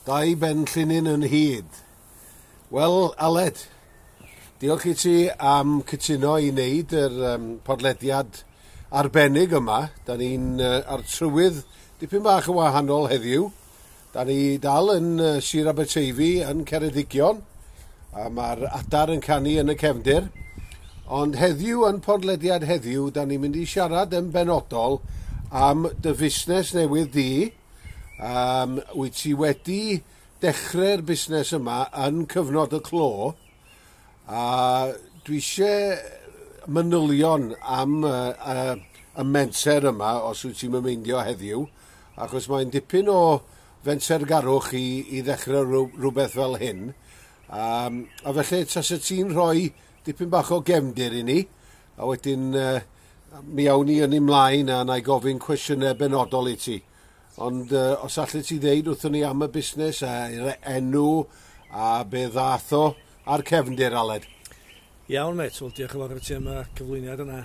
Dau ben llinyn yn hyd. Wel, Aled, diolch i ti am cytuno i wneud yr podlediad arbennig yma. Da ni'n ar trywydd dipyn bach yn wahanol heddiw. Da ni dal yn Sir Aberteifi yn Ceredigion, a mae'r adar yn canu yn y cefndir. Ond heddiw, yn podlediad heddiw, da ni'n mynd i siarad yn benodol am dy fusnes newydd di. Wyt ti wedi dechrau'r busnes yma yn cyfnod y clo, a dwi eisiau manylion am y menter yma, os wyt ti'n meindio heddiw, achos mae'n dipyn o fentergarwch i ddechrau rhywbeth fel hyn. A felly, tasa ti'n rhoi dipyn bach o gefndir i ni, a wedyn mi awn ni yn ymlaen a na i gofyn cwestiynau benodol i ti. Ond os allet ti ddeud wrthon ni am y busnes a'r enw a be ddath o a'r cefndir, Aled. Iawn, mate. Wel, diolch yn fawr i ti am y cyflwyniad yna.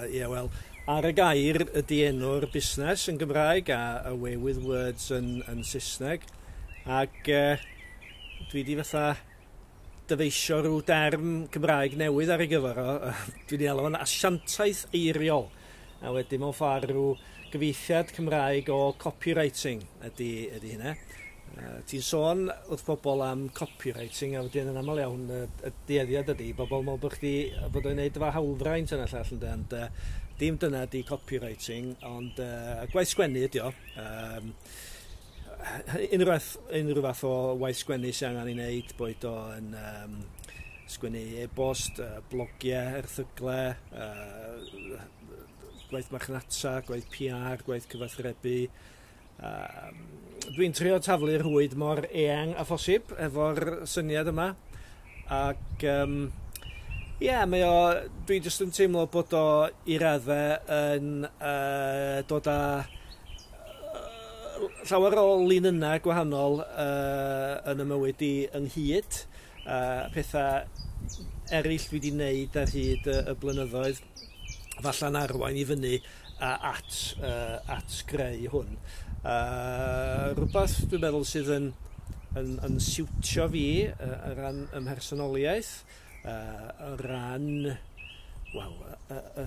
Ie, wel, Ar y Gair ydy enw'r busnes yn Gymraeg a Away With Words yn Saesneg. Ac dwi di fatha dyfeisio rhyw derm Cymraeg newydd ar ei gyfer o. Dwi'n ei alw fo'n asiantaeth eiriol. A wedyn mewn ffordd rhyw gyfieithiad Cymraeg o copywriting ydy hynna. Ti'n sôn wrth bobl am copywriting a wedyn yn aml iawn y dueddiad ydy bobl meddwl bod chdi bod o'n neud efo hawlfraint yna llall ynde, ond dim dyna ydy copywriting, ond gwaith sgwennu ydy o. Unrhyw fath o waith sgwennu sy'n angen ei wneud, boed o yn sgwennu e-bost, blogiau, erthyglau, gwaith marchnata, gwaith PR, gwaith cyfathrebu. Dwi'n trio taflu'r rhwyd mor eang a phosib efo'r syniad yma. Ac ie, mae o, dwi jyst yn teimlo bod o i raddau yn dod â llawer o linynnau gwahanol yn y mywyd i ynghyd. Pethau eraill dwi wedi wneud ar hyd y blynyddoedd, falla'n arwain i fyny at greu hwn. Rhywbeth dwi'n meddwl sydd yn siwtio fi o ran ym mhersonoliaeth, o ran, wel,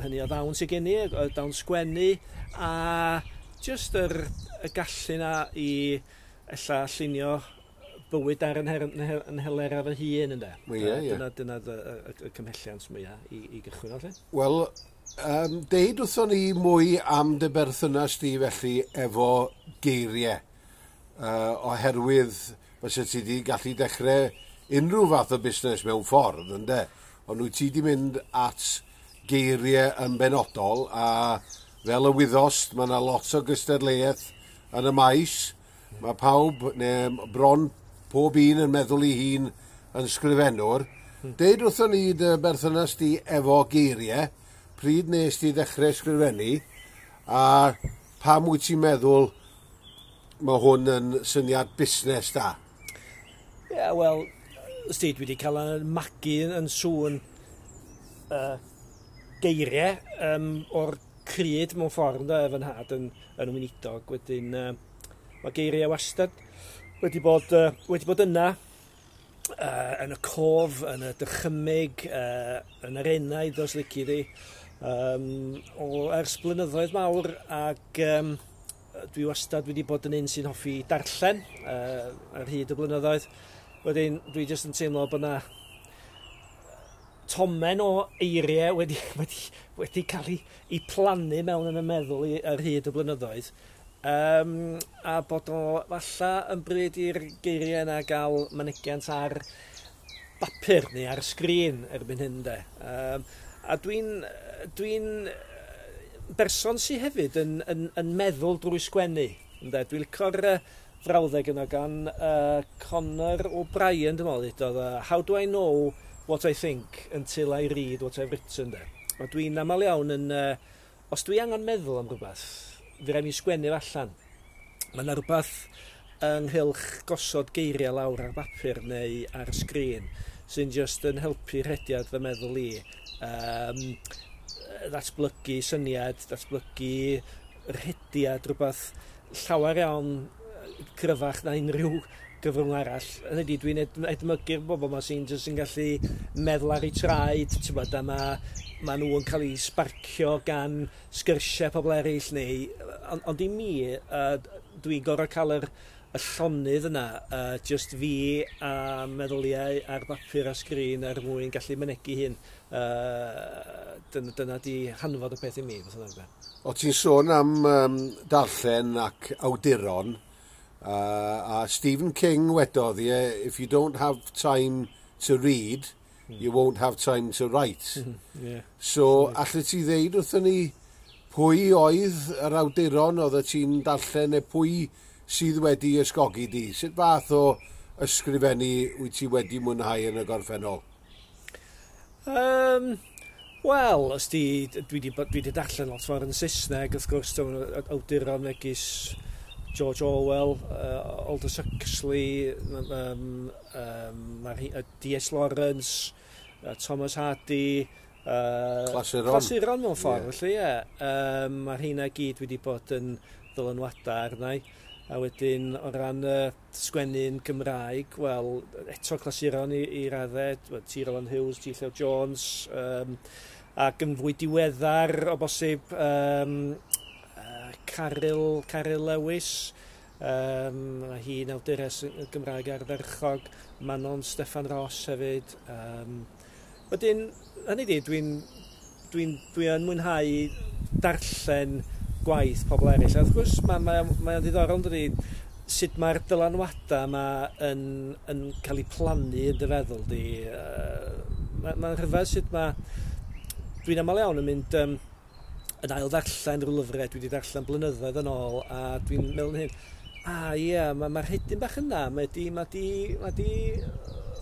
hynny o ddawn sydd gen i, y dawn sgwennu, a jyst y gallu 'na i ella llunio bywyd ar yn nhelerau fy hun, ynde. Ie. Dyna y cymhelliant mwyaf i gychwyn o, lle. Wel, deud wrthon ni mwy am dy berthynas di felly efo geiriau. Oherwydd fysa ti di gallu dechrau unrhyw fath o busnes mewn ffordd, ynde? Ond wyt ti di mynd at geiriau yn benodol, a fel y wyddost, mae yna lot o gystadleuaeth yn y maes. Mae pawb, neu bron pob un yn meddwl ei hun yn sgrifennwr. Deud wrthon ni dy berthynas di efo geiriau, pryd nes ti ddechrau sgrifennu, a pam wyt ti'n meddwl mae hwn yn syniad busnes da? Ie, yeah, wel, sti, dwi wedi cael yn magu yn sŵn geiriau o'r cryd mewn ffordd, ynde, fy nhad yn weinidog. Wedyn, mae geiriau wastad wedi bod yna yn y cof, yn y dychymyg, yn yr enaid, os lici di, o ers blynyddoedd mawr, ac dwi wastad wedi bod yn un sy'n hoffi darllen ar hyd y blynyddoedd. Wedyn, dwi jyst yn teimlo bod na tomen o eiriau wedi cael ei plannu mewn yn y meddwl i ar hyd y blynyddoedd. A bod o falla yn bryd i'r geiriau yna gael mynegiant ar bapur neu ar sgrin erbyn hyn, de. A dwi berson sydd hefyd yn meddwl drwy sgwennu. Ynde? Dwi'n licio'r frawddeg yna gan Conor O'Brien, dwi'n meddwl, ddudodd, "How do I know what I think until I read what I've written?" De. A dwi'n aml iawn yn... Os dwi angen meddwl am rhywbeth, fe rai mi sgwennu fo allan. Mae yna rhywbeth ynghylch gosod geiriau lawr ar bapur neu ar sgrin sy'n just yn helpu rhediad fy meddwl i. Ddatblygu syniad, datblygu rhediad, rhywbeth llawer iawn cryfach na unrhyw gyfrwng arall. Hynny ydi, dwi'n edmygu'r bobl yma sy'n jyst yn gallu meddwl ar eu traed, ti'n bod, a ma nhw yn cael eu sbarcio gan sgyrsiau pobl eraill neu... Ond i mi, dwi'n gorfod cael y llonydd yna, just fi a meddyliau ar bapur a sgrin er mwyn gallu mynegi hyn. Dyna di hanfod y peth i mi. O, ti'n sôn am darllen ac awduron, a Stephen King wedodd, yeah, "If you don't have time to read, you won't have time to write." So, allet ti ddeud wrthyn ni pwy oedd yr awduron oedd ti'n darllen neu pwy sydd wedi ysgogi di? Sut fath o ysgrifennu wyt ti wedi mwynhau yn y gorffennol? Wel, os di, dwi di darllen lot fawr yn Saesneg, wrth gwrs, awduron megis George Orwell, Aldous Huxley, D.S. Lawrence, Thomas Hardy, Clasuron. Clasuron mewn ffordd, yeah. Felly ie. Yeah. Mae'r rheina gyd wedi bod yn ddylanwadau arna i. A wedyn, o ran sgwennu'n Gymraeg, wel, eto clasuron i raddau, T. Roland Hughes, G. Llew Jones, ac yn fwy diweddar o bosib Caryl Lewis, mae hi'n awdures Gymraeg ardderchog, Manon Steffan Ross hefyd. Wedyn, hynny di, dwi yn mwynhau darllen gwaith pobl eraill. A wrth gwrs, mae ddiddorol yn dydi, sut mae'r dylanwadau yma yn cael eu plannu yn dy feddwl di. Mae'n rhyfedd sut mae... Dwi'n aml iawn yn mynd yn ail ddarllen rhyw lyfrau dwi wedi darllen blynyddoedd yn ôl, a dwi'n meddwl hyn, a ie, yeah, mae'r hedyn bach yna, mae di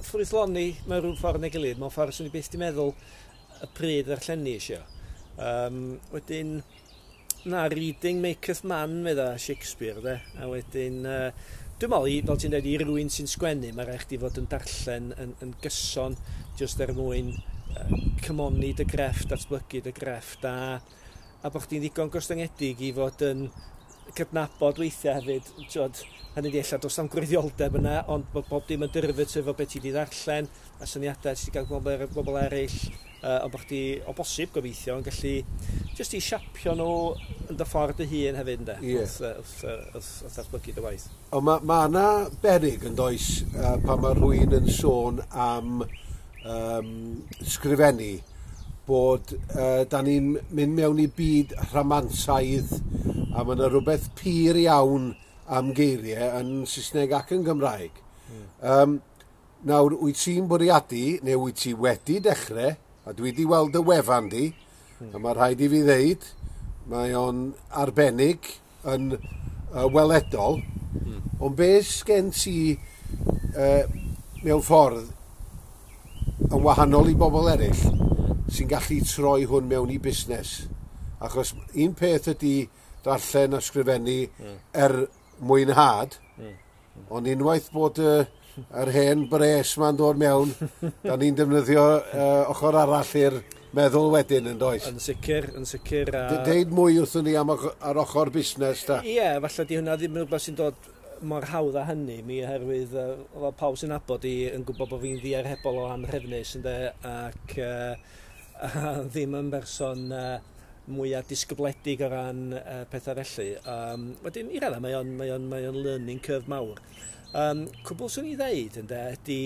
ffrwythloni mewn rhyw ffordd neu gilydd, mewn ffordd swn i byth di meddwl y pryd ddarllenni eisiau. Wedyn, na, "Reading maketh man", medda Shakespeare, de. A wedyn, dwi'n meddwl, fel ti'n dweud, i rywun sy'n sgwennu, mae rhaid chdi fod yn darllen yn gyson, jyst er mwyn cymoni dy grefft, datblygu dy grefft, a bod chdi'n ddigon gostyngedig i fod yn cydnabod weithiau hefyd, t'wod, hynny di ella does na'm gwreiddioldeb yna, ond bod bob dim yn derivative o beth ti wedi ddarllen, a syniadau ti wedi gael bobl eraill, ond bod chdi o bosib gobeithio yn gallu jyst i siapio nhw yn dy ffordd dy hun hefyd, ynde? Ie. Wrth ddatblygu dy waith. Ond ma yna berig yn does pan mae rhywun yn sôn am sgrifennu bod da ni'n mynd mewn i byd rhamantaidd a mae yna rhywbeth pur iawn am geiriau yn Saesneg ac yn Gymraeg. Nawr, wyt ti'n bwriadu, neu wyt ti wedi dechrau, a dwi wedi weld y wefan di, a mae rhaid i fi ddeud, mae o'n arbennig yn weledol, ond be sgen ti mewn ffordd yn wahanol i bobl eraill sy'n gallu troi hwn mewn i busnes? Achos un peth ydy darllen a sgrifennu er mwynhad, ond unwaith bod yr hen bres ma'n dod mewn, da ni'n defnyddio ochr arall i'r meddwl wedyn yn does? Yn sicr, yn sicr. A... Deud mwy wrthyn ni am ar ochr busnes, ta. Ie, yeah, falle di hwnna ddim yn rhywbeth sy'n dod mor hawdd â hynny mi, oherwydd fel pawb sy'n nabod i yn gwybod bod fi'n ddiarhebol o anhrefnus, ynde, ac ddim yn berson mwyaf disgybledig o ran pethau felly. Wedyn, i raddau, mae o'n learning curve mawr. Cwbl swn i ddeud, ynde, ydy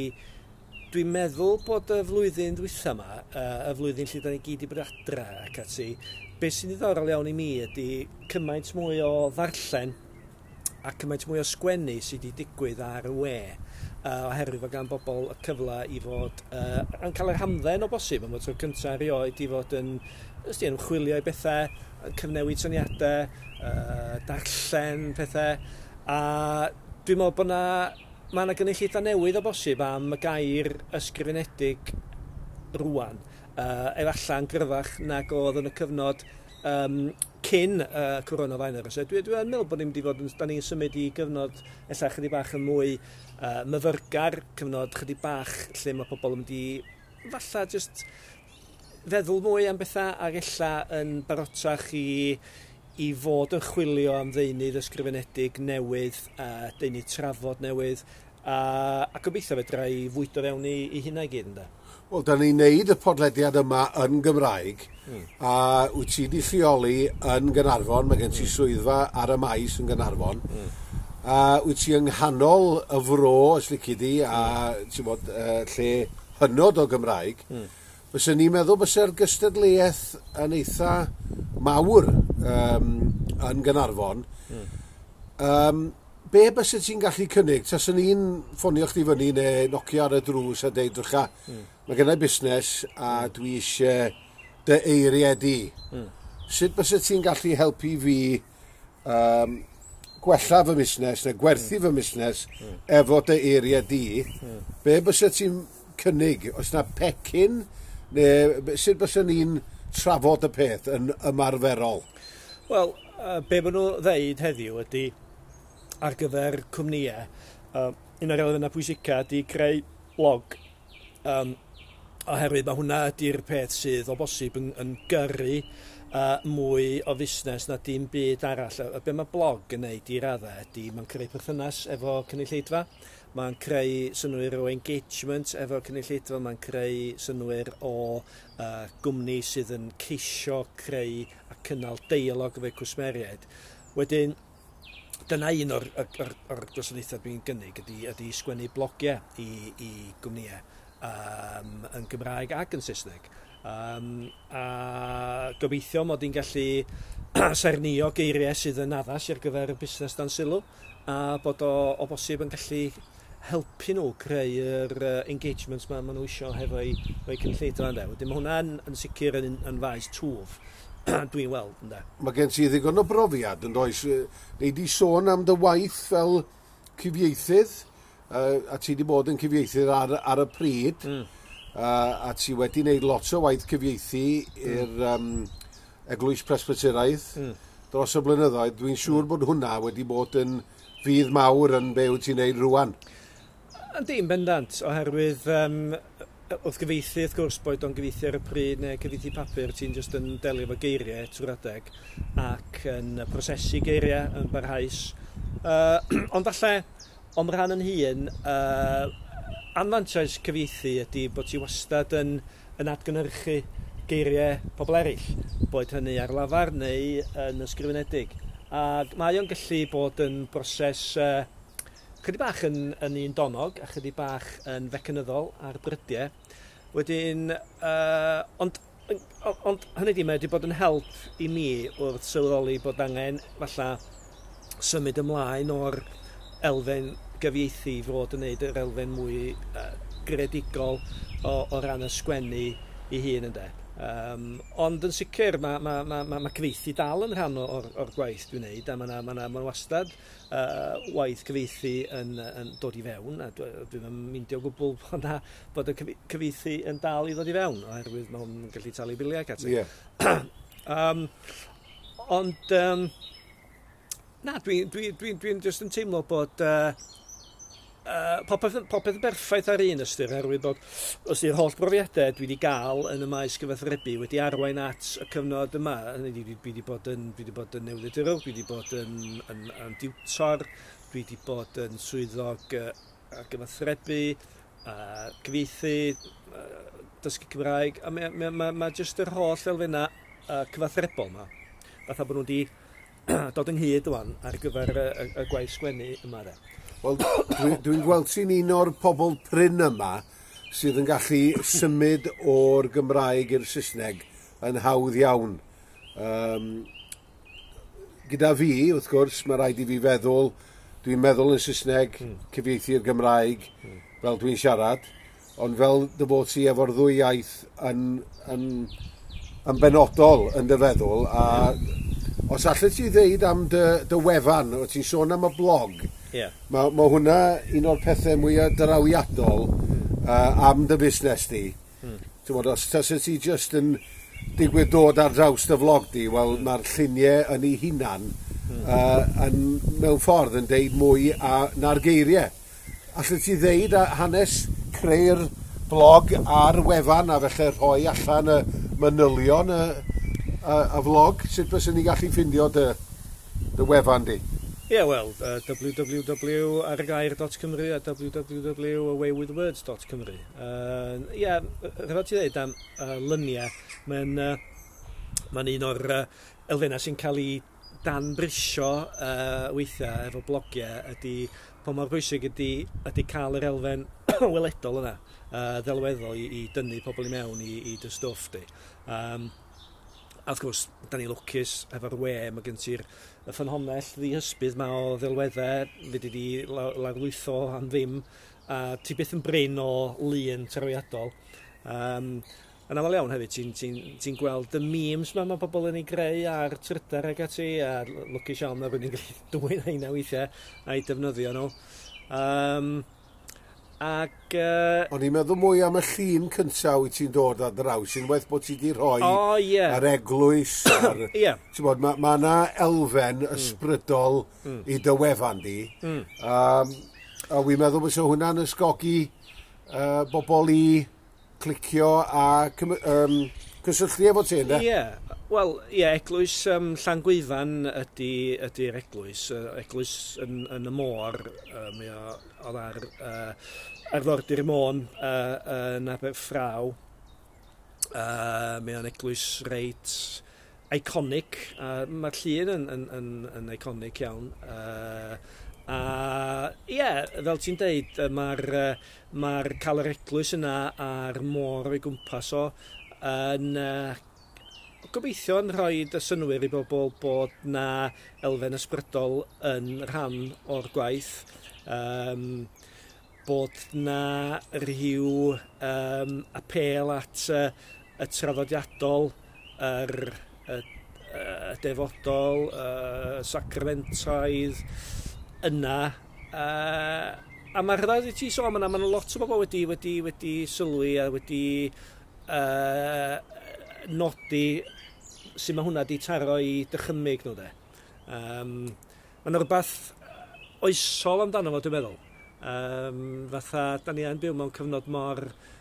dwi'n meddwl bod y flwyddyn ddwytha yma, y flwyddyn lle da ni gyd i bod adra ac ati, beth sy'n ddiddorol iawn i mi ydy cymaint mwy o ddarllen a cymaint mwy o sgwennu sydd wedi digwydd ar y we, oherwydd fod gan bobl y cyfle i fod yn cael yr hamdden o bosib am y tro cyntaf erioed i fod yn ysdi, yn chwilio i bethau, yn cyfnewid syniadau, darllen pethau, a dwi'n meddwl bod na mae yna gynulleidfa newydd o bosib am y gair ysgrifenedig rwan. Efallai yn gryfach nag oedd yn y cyfnod cyn coronavirus. Dwi yn meddwl bod ni'n mynd i fod yn, da ni'n symud i gyfnod ella chydig bach yn mwy myfyrgar, cyfnod chydig bach lle mae pobl yn mynd i falle just feddwl mwy am bethau ac ella yn barotach i fod yn chwilio am ddeunydd ysgrifenedig newydd, deunydd trafod newydd. A gobeithio fedra i fwydo fewn i hynna i gyd, ynde. Wel, da ni'n neud y podlediad yma yn Gymraeg, a wyt ti 'di lleoli yn Gaernarfon, mae gen ti swyddfa ar y maes yn Gaernarfon, a wyt ti yng nghanol y fro, os lici di, a ti'n bod, lle hynod o Gymraeg. Fyswn ni'n meddwl bysa'r gystadleuaeth yn eitha mawr yn Gaernarfon. Be bysa ti'n gallu cynnig? Taswn i'n ffonio chdi fyny neu nocio ar y drws a deud, drycha, mae gennai busnes a dwi eisiau dy eiriau di. Sut bysa ti'n gallu helpu fi gwella fy busnes neu gwerthu fy busnes efo dy eiriau di? Be bysa ti'n cynnig? Oes na pecyn? Neu sut bysa ni'n trafod y peth yn ymarferol? Wel, be maen nhw ddeud heddiw ydy ar gyfer cwmnïau, un o'r elfennau pwysica ydy creu blog. Oherwydd mae hwnna ydy'r peth sydd o bosib yn gyrru mwy o fusnes na dim byd arall. A be mae blog yn neud i raddau ydy mae'n creu perthynas efo cynulleidfa, mae'n creu synnwyr o engagement efo cynulleidfa, mae'n creu synnwyr o gwmni sydd yn ceisio creu a cynnal deialog efo'u cwsmeriaid. Wedyn, dyna un o'r gwasanaethau dwi'n gynnig ydy sgwennu blogiau i gwmnïau yn Gymraeg ac yn Saesneg. A gobeithio mod i'n gallu saernïo geiriau sydd yn addas ar gyfer y busnes dan sylw, a bod o bosib yn gallu helpu nhw creu yr engagement ma nhw isio hefo'u cynulleidfa, ynde. Wedyn mae hwnna'n yn sicr yn faes twf dwi'n weld, ynde. Mae gen ti ddigon o brofiad, yn does? Nei di sôn am dy waith fel cyfieithydd, a ti di bod yn cyfieithydd ar y pryd, a ti wedi wneud lot o waith cyfieithu i'r Eglwys Presbyteraidd dros y blynyddoedd. Dwi'n siŵr bod hwnna wedi bod yn fudd mawr yn be wyt ti'n neud rŵan. Yndi, yn bendant, oherwydd wrth gyfieithu, wrth gwrs, boed o'n gyfieithu ar y pryd neu cyfieithu papur, ti'n just yn delio efo geiriau trwy'r adeg ac yn prosesu geiriau yn barhaus. Ond falle, o'm rhan yn hun, anfantais cyfieithu ydy bod ti wastad yn atgynhyrchu geiriau pobl eraill, boed hynny ar lafar neu yn ysgrifenedig. Ac mae o'n gallu bod yn broses chydig bach yn un donog a chydig bach yn fecanyddol ar brydiau. Wedyn, ond hynny di, mae wedi bod yn help i mi wrth sylweddoli bod angen falle symud ymlaen o'r elfen gyfieithu i fod yn neud yr elfen mwy greadigol o ran y sgwennu i hun, ynde. Ond yn sicr mae cyfieithu dal yn rhan o'r gwaith dwi'n neud, a mae wastad waith cyfieithu yn dod i fewn, a dwi'n meindio o gwbl bod y cyfieithu yn dal i ddod i fewn, oherwydd mae'n gallu talu biliau ac ati. Ond na, dwi'n just yn teimlo bod popeth yn berffaith ar un ystyr, oherwydd bod os di'r holl brofiadau dwi wedi gael yn y maes gyfathrebu wedi arwain at y cyfnod yma. Dwi wedi bod yn newyddiadurwr, dwi wedi bod yn diwtor, dwi wedi bod yn swyddog ar gyfathrebu, cyfieithu, dysgu Cymraeg, a mae jyst yr holl elfennau cyfathrebol yma, fatha bod nhw wedi dod ynghyd ŵan ar gyfer y gwaith sgwennu yma, de. Wel, dwi'n gweld ti'n un o'r pobl prin yma sydd yn gallu symud o'r Gymraeg i'r Saesneg yn hawdd iawn. Gyda fi, wrth gwrs, mae rhaid i fi feddwl, dwi'n meddwl yn Saesneg, cyfieithu'r Gymraeg, fel dwi'n siarad, ond fel dy fod ti efo'r ddwy iaith yn benodol yn dy feddwl, a os allet ti ddeud am dy wefan, o ti'n sôn am y blog, mae hwnna un o'r pethau mwyaf drawiadol am dy busnes di. Ti'n bod, os taset ti just yn digwydd dod ar draws dy vlog di, wel, mae'r lluniau yn ei hunan yn, mewn ffordd yn deud mwy na'r geiriau. Allet ti ddeud hanes creu'r blog a'r wefan a felly rhoi allan y manylion y vlog? Sut fyswn ni gallu ffindio dy wefan di? Ie, wel, www.arygair.cymru a www.awaywithwords.cymru. Ie, rhaid ti ddeud am lyniau, mae'n un o'r elfennau sy'n cael ei danbrisio weithiau efo blogiau ydy pa mor bwysig ydy cael yr elfen weledol yna, ddelweddol i dynnu pobl i mewn i dy stwff di. A wrth gwrs, da ni lwcus efo'r we, mae gen ti'r y ffynhonnell ddihysbydd ma o ddelweddau, fedri di lawrlwytho am ddim, a ti byth yn brin o lun trawiadol. Yn aml iawn hefyd, ti'n gweld y memes ma mae pobl yn ei greu ar Twitter ac ati, a lwcus iawn mae rhywun yn gallu dwyn heina weithiau a'i defnyddio nhw. O'n i'n meddwl mwy am y llun cyntaf wyt ti'n dod ar draws, unwaith bod ti wedi rhoi yr eglwys. Ti'n bod, ma 'na elfen ysbrydol i dy wefan di. A wi'n meddwl bod hwnna'n ysgogi bobl i clicio a cysylltu efo ti, ynddo? Ie, wel, ie, eglwys Llangwyfan ydy'r eglwys. Eglwys yn y môr, mae o oedd ar arfordir Môn yn Aberffraw. Mae o'n eglwys reit iconic. Mae'r llun yn iconic iawn. A ie, fel ti'n deud, mae'r cael yr eglwys yna a'r môr o'i gwmpas o yn gobeithio yn rhoi y synnwyr i bobl bod na elfen ysbrydol yn rhan o'r gwaith. Bod na rhyw apêl at y traddodiadol, y defodol, y sacramentaidd yna. A mae'r rhaid i ti sôn yna, mae lot o bobl wedi sylwi a wedi nodi sut mae hwnna di taro i dychymyg nhw de. Mae'n rhywbeth oesol amdano fo, dwi'n meddwl. Fatha, da ni yn byw mewn cyfnod mor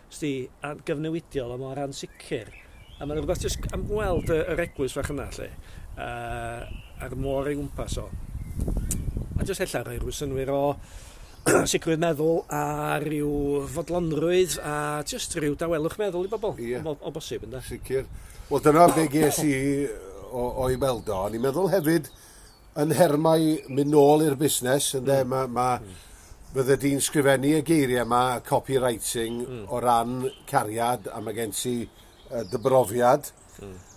gyfnewidiol a mor ansicr. A mae'n rhywbeth jyst am weld yr eglwys fach yna, lle, a'r môr ei gwmpas o. A jyst ella rhoi rhyw synnwyr o sicrwydd meddwl a rhyw fodlonrwydd a jyst rhyw dawelwch meddwl i bobl, o bosib, ynde? Sicr. Wel, dyna be ges i o'i weld o. O'n i'n meddwl hefyd yn nhermau mynd nôl i'r busnes, ynde, fydde di'n sgrifennu y geiriau yma, copywriting, o ran cariad, a mae gen ti dy brofiad.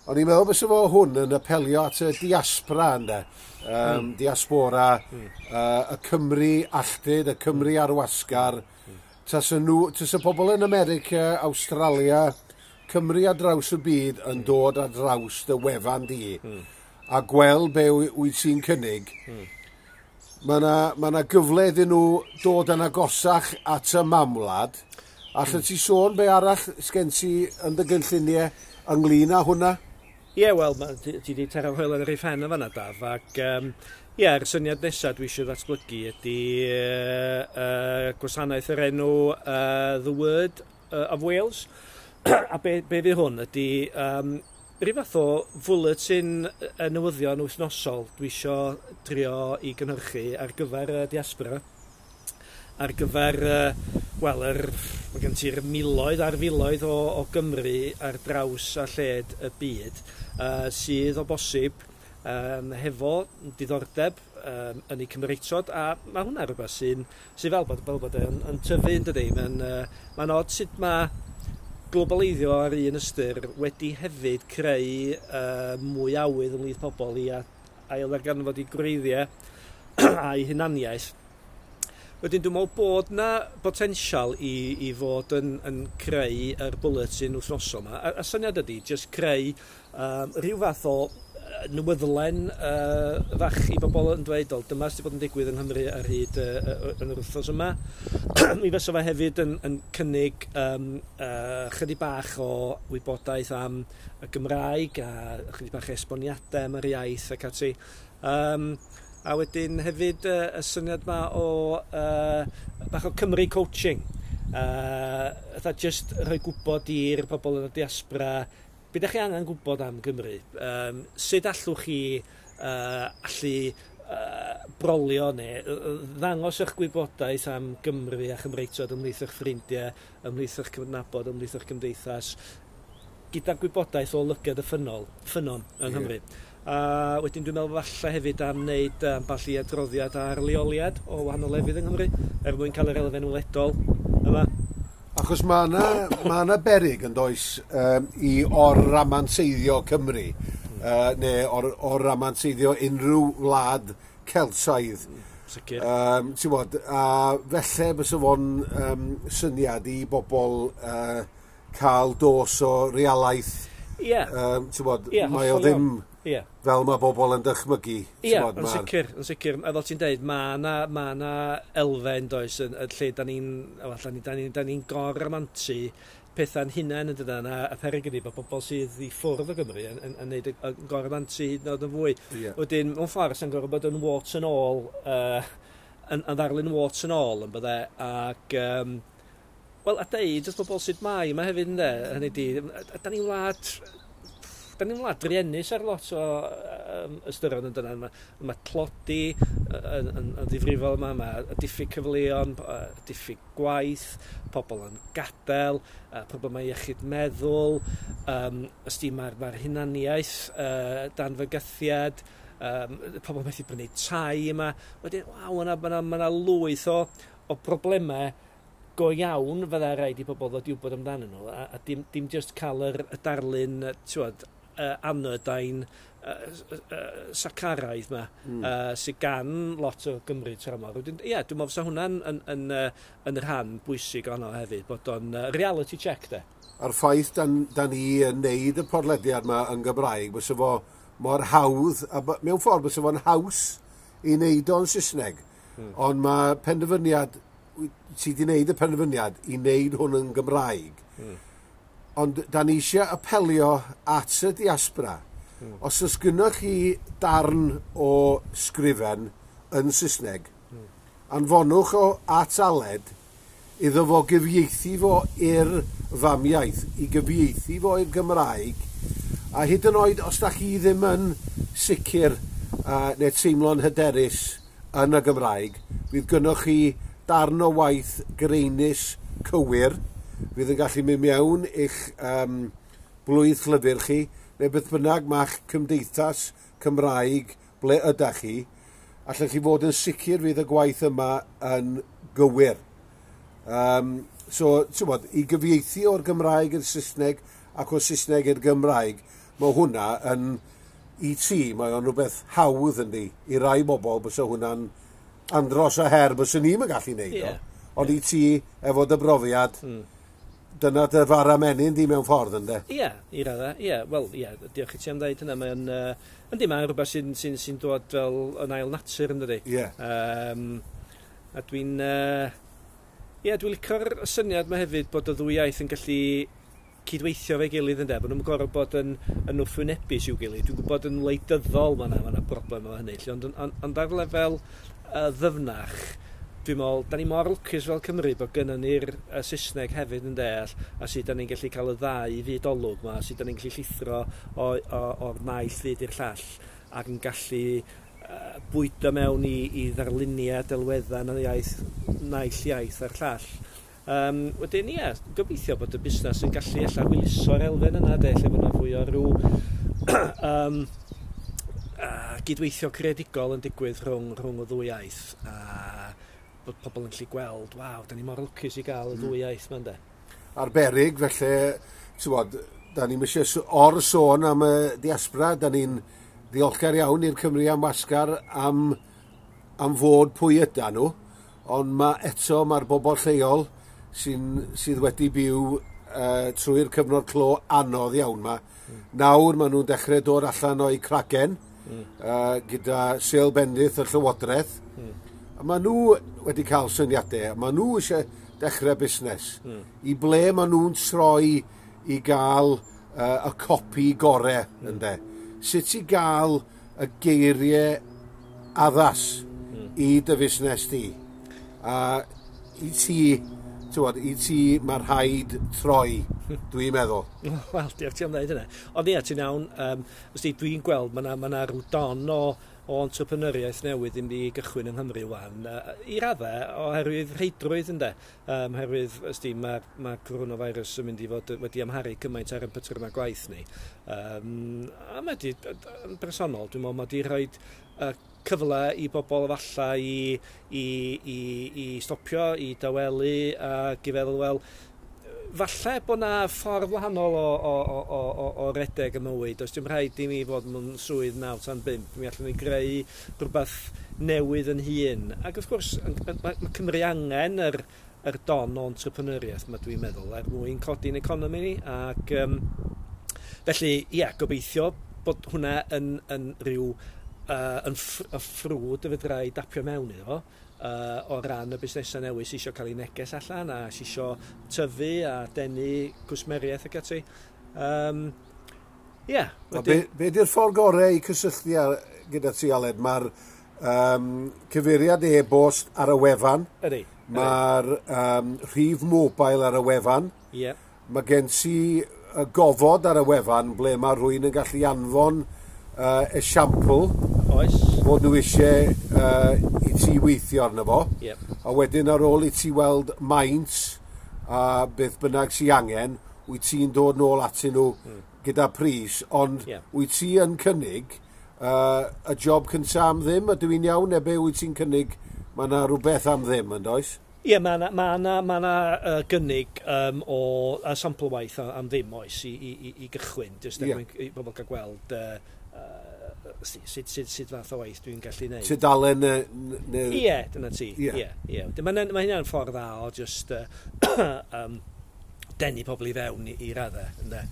O'n i'n meddwl bysa fo hwn yn apelio at y diaspora, ynde? Diaspora, y Cymru alltud, y Cymru ar wasgar. Tasa pobl yn America, Australia, Cymru ar draws y byd yn dod ar draws dy wefan di, a gweld be wyt ti'n cynnig, mae 'na gyfle iddyn nhw dod yn agosach at y mamwlad. Allet ti sôn be arall sgen ti yn dy gynlluniau ynglyn â hwnna? Ie, yeah, wel, ti wedi taro hoelen ar ei phen yn fanna, Daf, ac ie, yr syniad nesaf dwi eisiau ddatblygu ydy gwasanaeth yr enw The Word of Wales. A be fydd hwn ydy rhyw fath o fwletin y newyddion wythnosol dwi eisiau drio i gynhyrchu ar gyfer y diaspora, ar gyfer, wel, mae gen ti'r miloedd ar filoedd o Gymru ar draws a lled y byd, sydd o bosib hefo diddordeb yn eu Cymreictod, a mae hwnna rhywbeth sydd fel bod yn tyfu, yn dydi? Mae'n od sut mae globaleiddio ar un ystyr wedi hefyd creu mwy awydd ymhlith pobl i ail-ddarganfod eu gwreiddiau a'i hunaniaeth. Wedyn dwi'n meddwl bod na potensial i fod yn creu yr bulletin wythnosol yma. A syniad ydy jyst creu rhyw fath o newyddlen fach i bobl yn dweud, "O, dyma sydd wedi bod yn digwydd yng Nghymru ar hyd yn yr wythnos yma." Mi fysa fe hefyd yn cynnig chydig bach o wybodaeth am y Gymraeg a chydig bach esboniadau am yr iaith ac ati. A wedyn hefyd y syniad ma o bach o Cymru coaching. Fatha just rhoi gwybod i'r pobl yn y diaspora be ydych chi angen gwybod am Gymru. Sut allwch chi allu brolio neu ddangos eich gwybodaeth am Gymru a Chymreictod ymhlith eich ffrindiau, ymhlith eich cydnabod, ymhlith eich cymdeithas, gyda gwybodaeth o lygad y ffynnon yng Nghymru. A wedyn dwi'n meddwl falle hefyd am wneud ambell i adroddiad ar leoliad o wahanol lefydd yng Nghymru, er mwyn cael yr elfen weledol yma. Achos mae yna beryg yn does i or-ramanseiddio Cymru, neu or-ramanseiddio unrhyw wlad Celtaidd. Sicr. Ti'n bod, a felly bysa fo'n syniad i bobl cael dos o realaeth. Ie. Ti'n bod, mae o ddim fel mae bobl yn dychmygu. Ie, yn sicr, yn sicr. A fel ti'n deud, mae yna elfen, does, yn lle da ni'n gor-ramantu pethau'n hunain yn dydan, a peryg ydi bod bobl sydd i ffwrdd o Gymru yn neud y gor-ramantu hyd yn oed yn fwy. Wedyn, mewn ffordd, sy'n gorfod bod yn warts and all, yn ddarlun warts and all, yn bydde, ac... Wel, a deud wrth bobl sut mae yma hefyd, ynde, hynny di, da ni'n wlad druenus ar lot o ystyron yn dyna. Mae tlodi yn ddifrifol yma, mae diffyg cyfleon, diffyg gwaith, pobl yn gadael, problemau iechyd meddwl, ysdi mae'r hunaniaeth dan fygythiad, pobl methu brynu tai yma. Wedyn, waw, mae yna lwyth o problemau go iawn fydda rhaid i pobl ddod i wybod amdanyn nhw, a dim just cael y darlun, ti'n anodyne sacaraidd yma, sydd gan lot o Gymru tramor. Wedyn, ie, dwi'n meddwl fysa hwnna'n yn rhan bwysig ono hefyd, bod o'n reality check, de. A'r ffaith da ni yn neud y podlediad yma yn Gymraeg, bysa fo mor hawdd, a mewn ffordd bysa fo'n haws i wneud o'n Saesneg. Ond mae penderfyniad, ti wedi wneud y penderfyniad i wneud hwn yn Gymraeg. Ond da ni eisiau apelio at y diaspora. Os oes gynnoch chi darn o sgrifen yn Saesneg, anfonwch o at Aled iddo fo gyfieithu fo i'r famiaith, i gyfieithu fo i'r Gymraeg, a hyd yn oed os da chi ddim yn sicr neu teimlo'n hyderus yn y Gymraeg, fydd gynnoch chi darn o waith greinus cywir, fydd yn gallu mynd mewn i'ch blwydd llyfr chi, neu beth bynnag ma'ch cymdeithas Cymraeg ble ydach chi, allwch chi fod yn sicr fydd y gwaith yma yn gywir. So, ti'n bod, i gyfieithu o'r Gymraeg i'r Saesneg ac o'r Saesneg i'r Gymraeg, mae hwnna yn, i ti, mae o'n rhywbeth hawdd yndi, i rai bobl bysa hwnna'n andros o her byswn ni'm yn gallu neud o. Ond i ti, efo dy brofiad, dyna dy fara menyn di mewn ffordd, ynde? Ie, i raddau, ie. Wel, ie, diolch i ti am ddeud hynna. Mae'n, yndi, mae'n rhywbeth sy'n dod fel yn ail natur, yndydi? Ie. A dwi'n... Ie, dwi'n licio'r syniad yma hefyd bod y ddwy iaith yn gallu cydweithio fe'i gilydd, ynde, bod nhw'n gorfod bod yn wrthwynebus i'w gilydd. Dwi'n gwybod yn wleidyddol mae yna broblem efo hynny, ond ar lefel ddyfnach, dwi'n meddwl, da ni mor lwcus fel Cymru bod gynnon ni'r Saesneg hefyd yn deall, a sut da ni'n gallu cael y ddau fyd olwg yma, sut da ni'n gallu llithro o'r naill fyd i'r llall, ac yn gallu bwydo mewn i ddarluniau, delweddau yn y iaith, naill iaith a'r llall. Wedyn, ie, gobeithio bod y busnes yn gallu ella hwyluso'r elfen yna, de, lle bod yna fwy o ryw gydweithio creadigol yn digwydd rhwng y ddwy iaith, a bod pobl yn gallu gweld, waw, da ni mor lwcus i gael y ddwy iaith yma, ynde. Arbennig, felly, ti'n bod, da ni'n eisiau or-sôn am y diaspora, da ni'n ddiolchgar iawn i'r Cymru am Wasgar am fod pwy yda nhw, ond mae eto mae'r bobl lleol sydd wedi byw trwy'r cyfnod clo anodd iawn ma. Nawr maen nhw'n dechrau dod allan o'i cragen gyda sêl bendith y Llywodraeth. A maen nhw wedi cael syniadau, maen nhw eisiau dechrau busnes. I ble maen nhw'n troi i gael y copi gorau, ynde? Sut i gael y geiriau addas i dy fusnes di? A i ti, ti'n i ti mae rhaid troi, dwi'n meddwl. Wel, diolch ti am ddeud hynna. Ond ie, ti'n iawn, dwi'n gweld, mae yna rhyw don o o entrepreneuriaeth newydd yn mynd i gychwyn yng Nghymru wan, i raddau oherwydd rheidrwydd, ynde. Oherwydd, ysdi, mae coronavirus yn mynd i fod wedi amharu cymaint ar ein patrymau gwaith ni. A mae di, yn bersonol, dwi'n meddwl, mae di rhoi cyfle i bobl efallai i stopio, i dawelu ac i feddwl, wel, falle bod na ffordd wahanol o redeg y mywyd. Does dim rhaid i mi fod mewn swydd 9 tan 5. Mi allwn ni greu rhywbeth newydd yn hun. Ac wrth gwrs, mae Cymru angen yr don o entrepreneuriaeth, mae dwi'n meddwl, er mwyn codi'n economi ni. Ac felly, ie, yeah, gobeithio bod hwnna yn rhyw yn y ffrwd y fedra i dapio mewn iddo fo o ran y busnesau newydd sy'n eisiau cael ei neges allan a sy'n eisiau tyfu a denu cwsmeriaeth ac ati. Ie. Yeah, be di'r ffordd gorau i cysylltu gyda ti, Aled? Mae'r cyfeiriad e-bost ar y wefan. Ydy. Mae'r rhif mobile ar y wefan. Ie. Yeah. Mae gen ti y gofod ar y wefan ble mae rhywun yn gallu anfon esiampl. Oes. Bod nhw eisiau i ti weithio arno fo. Yep. A wedyn ar ôl i ti weld maint a beth bynnag sy angen, wyt ti'n dod nôl atyn nhw gyda pris, ond wyt ti yn cynnig y job cyntaf am ddim, ydw i'n iawn, neu be wyt ti'n cynnig, mae yna rhywbeth am ddim, yn does? Ie, yeah, mae yna ma na, ma na, gynnig o sampl waith am ddim, oes, i gychwyn, jyst er mwyn i bobl gael gweld sut fath o waith dwi'n gallu neud. Tudalen neu. Ie, dyna ti. Ie, ie. Mae hynna'n ffordd dda o just denu pobl i fewn i raddau. Ynde?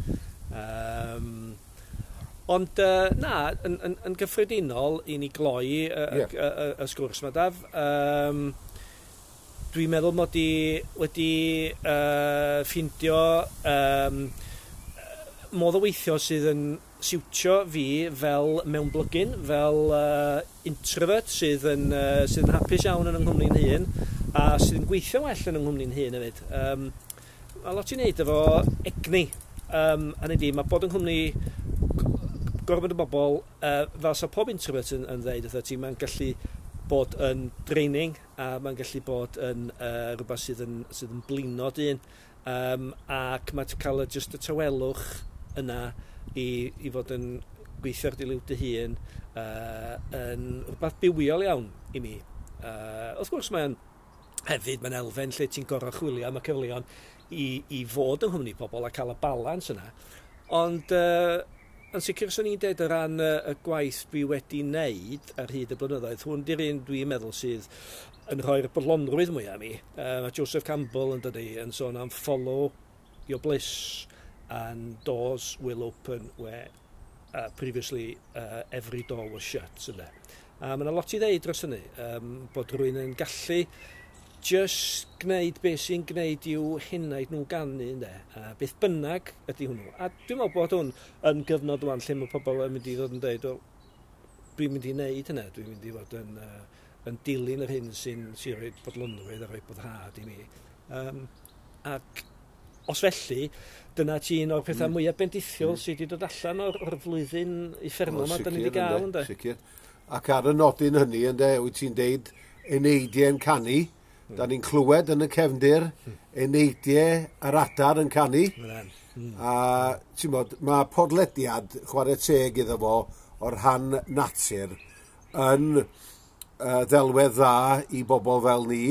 Ond na, yn gyffredinol, i ni gloi y sgwrs yma, Daf, dwi'n meddwl mod i wedi ffindio modd o weithio sydd yn siwtio fi fel mewnblygyn, fel introvert sydd yn hapus iawn yn yng nghwmni'n hun a sydd yn gweithio well yn yng nghwmni'n hun hefyd. Mae lot i wneud efo egni. Hynny ydi, mae bod yng nghwmni gormod o bobl, fel sa pob introvert yn dweud wrtho ti, mae'n gallu bod yn draining a mae'n gallu bod yn rhywbeth sydd yn blino dyn. Ac mae'n cael just y tawelwch yna i fod yn gweithio ar dy liw dy hun yn rhywbeth bywiol iawn i mi. Wrth gwrs mae'n hefyd mae'n elfen lle ti'n gorfod chwilio am y cyfleon i fod yng nghwmni pobl a cael y balans yna. Ond yn sicr swn i'n dweud o ran y gwaith dwi wedi wneud ar hyd y blynyddoedd, hwn di'r un dwi'n meddwl sydd yn rhoi'r bodlonrwydd mwyaf i mi. Mae Joseph Campbell yn dydi yn sôn am "follow your bliss and doors will open where previously every door was shut." Ynde? A mae yna lot i ddeud dros hynny, bod rhywun yn gallu just gwneud beth sy'n gwneud i'w henaid nhw ganu, ynde? A beth bynnag ydy hwnnw. A dwi'n meddwl bod hwn yn gyfnod wan lle mae pobl yn mynd i ddod yn dweud, "Wel, dwi'n mynd i wneud hynna, dwi'n mynd i fod yn dilyn yr hyn sy'n rhoi bodlonrwydd a rhoi boddhad i mi." Ac os felly, dyna ti un o'r pethau mwyaf bendithiol sydd wedi dod allan o'r flwyddyn uffernol yma da ni wedi gael, ynde? Sicr. Ac ar y nodyn hynny, ynde, wyt ti'n deud eneidiau'n canu, da ni'n clywed yn y cefndir eneidiau yr adar yn canu. A ti'n bod, mae podlediad, chwarae teg iddo fo, o'r rhan natur yn ddelwedd dda i bobl fel ni,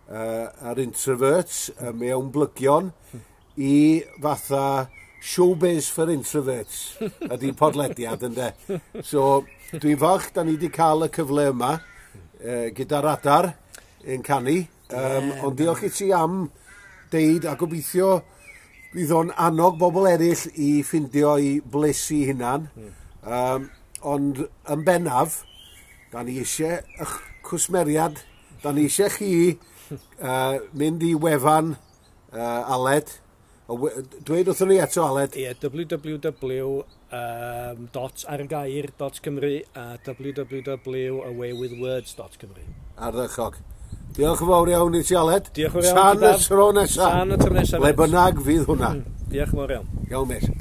a'r introverts, mewn blygion, i fatha showbiz for introverts ydy podlediad, ynde. So, dwi'n falch da ni wedi cael y cyfle yma gyda'r adar yn canu. Ond diolch i ti am deud a gobeithio fydd o'n annog bobl eraill i ffindio i bliss i hunan. Ond yn bennaf, da ni eisiau eich cwsmeriad, da ni eisiau chi mynd i wefan Aled. Dweud wrthon ni eto, Aled. Ie, www.argair.cymru a www.awaywithwords.cymru. Ardderchog. Diolch yn fawr iawn i ti, Aled. Diolch yn fawr iawn. Tan y tro nesaf. Tan y tro nesaf. Le bynnag fydd hwnna. Diolch yn fawr iawn. Iawn, mate.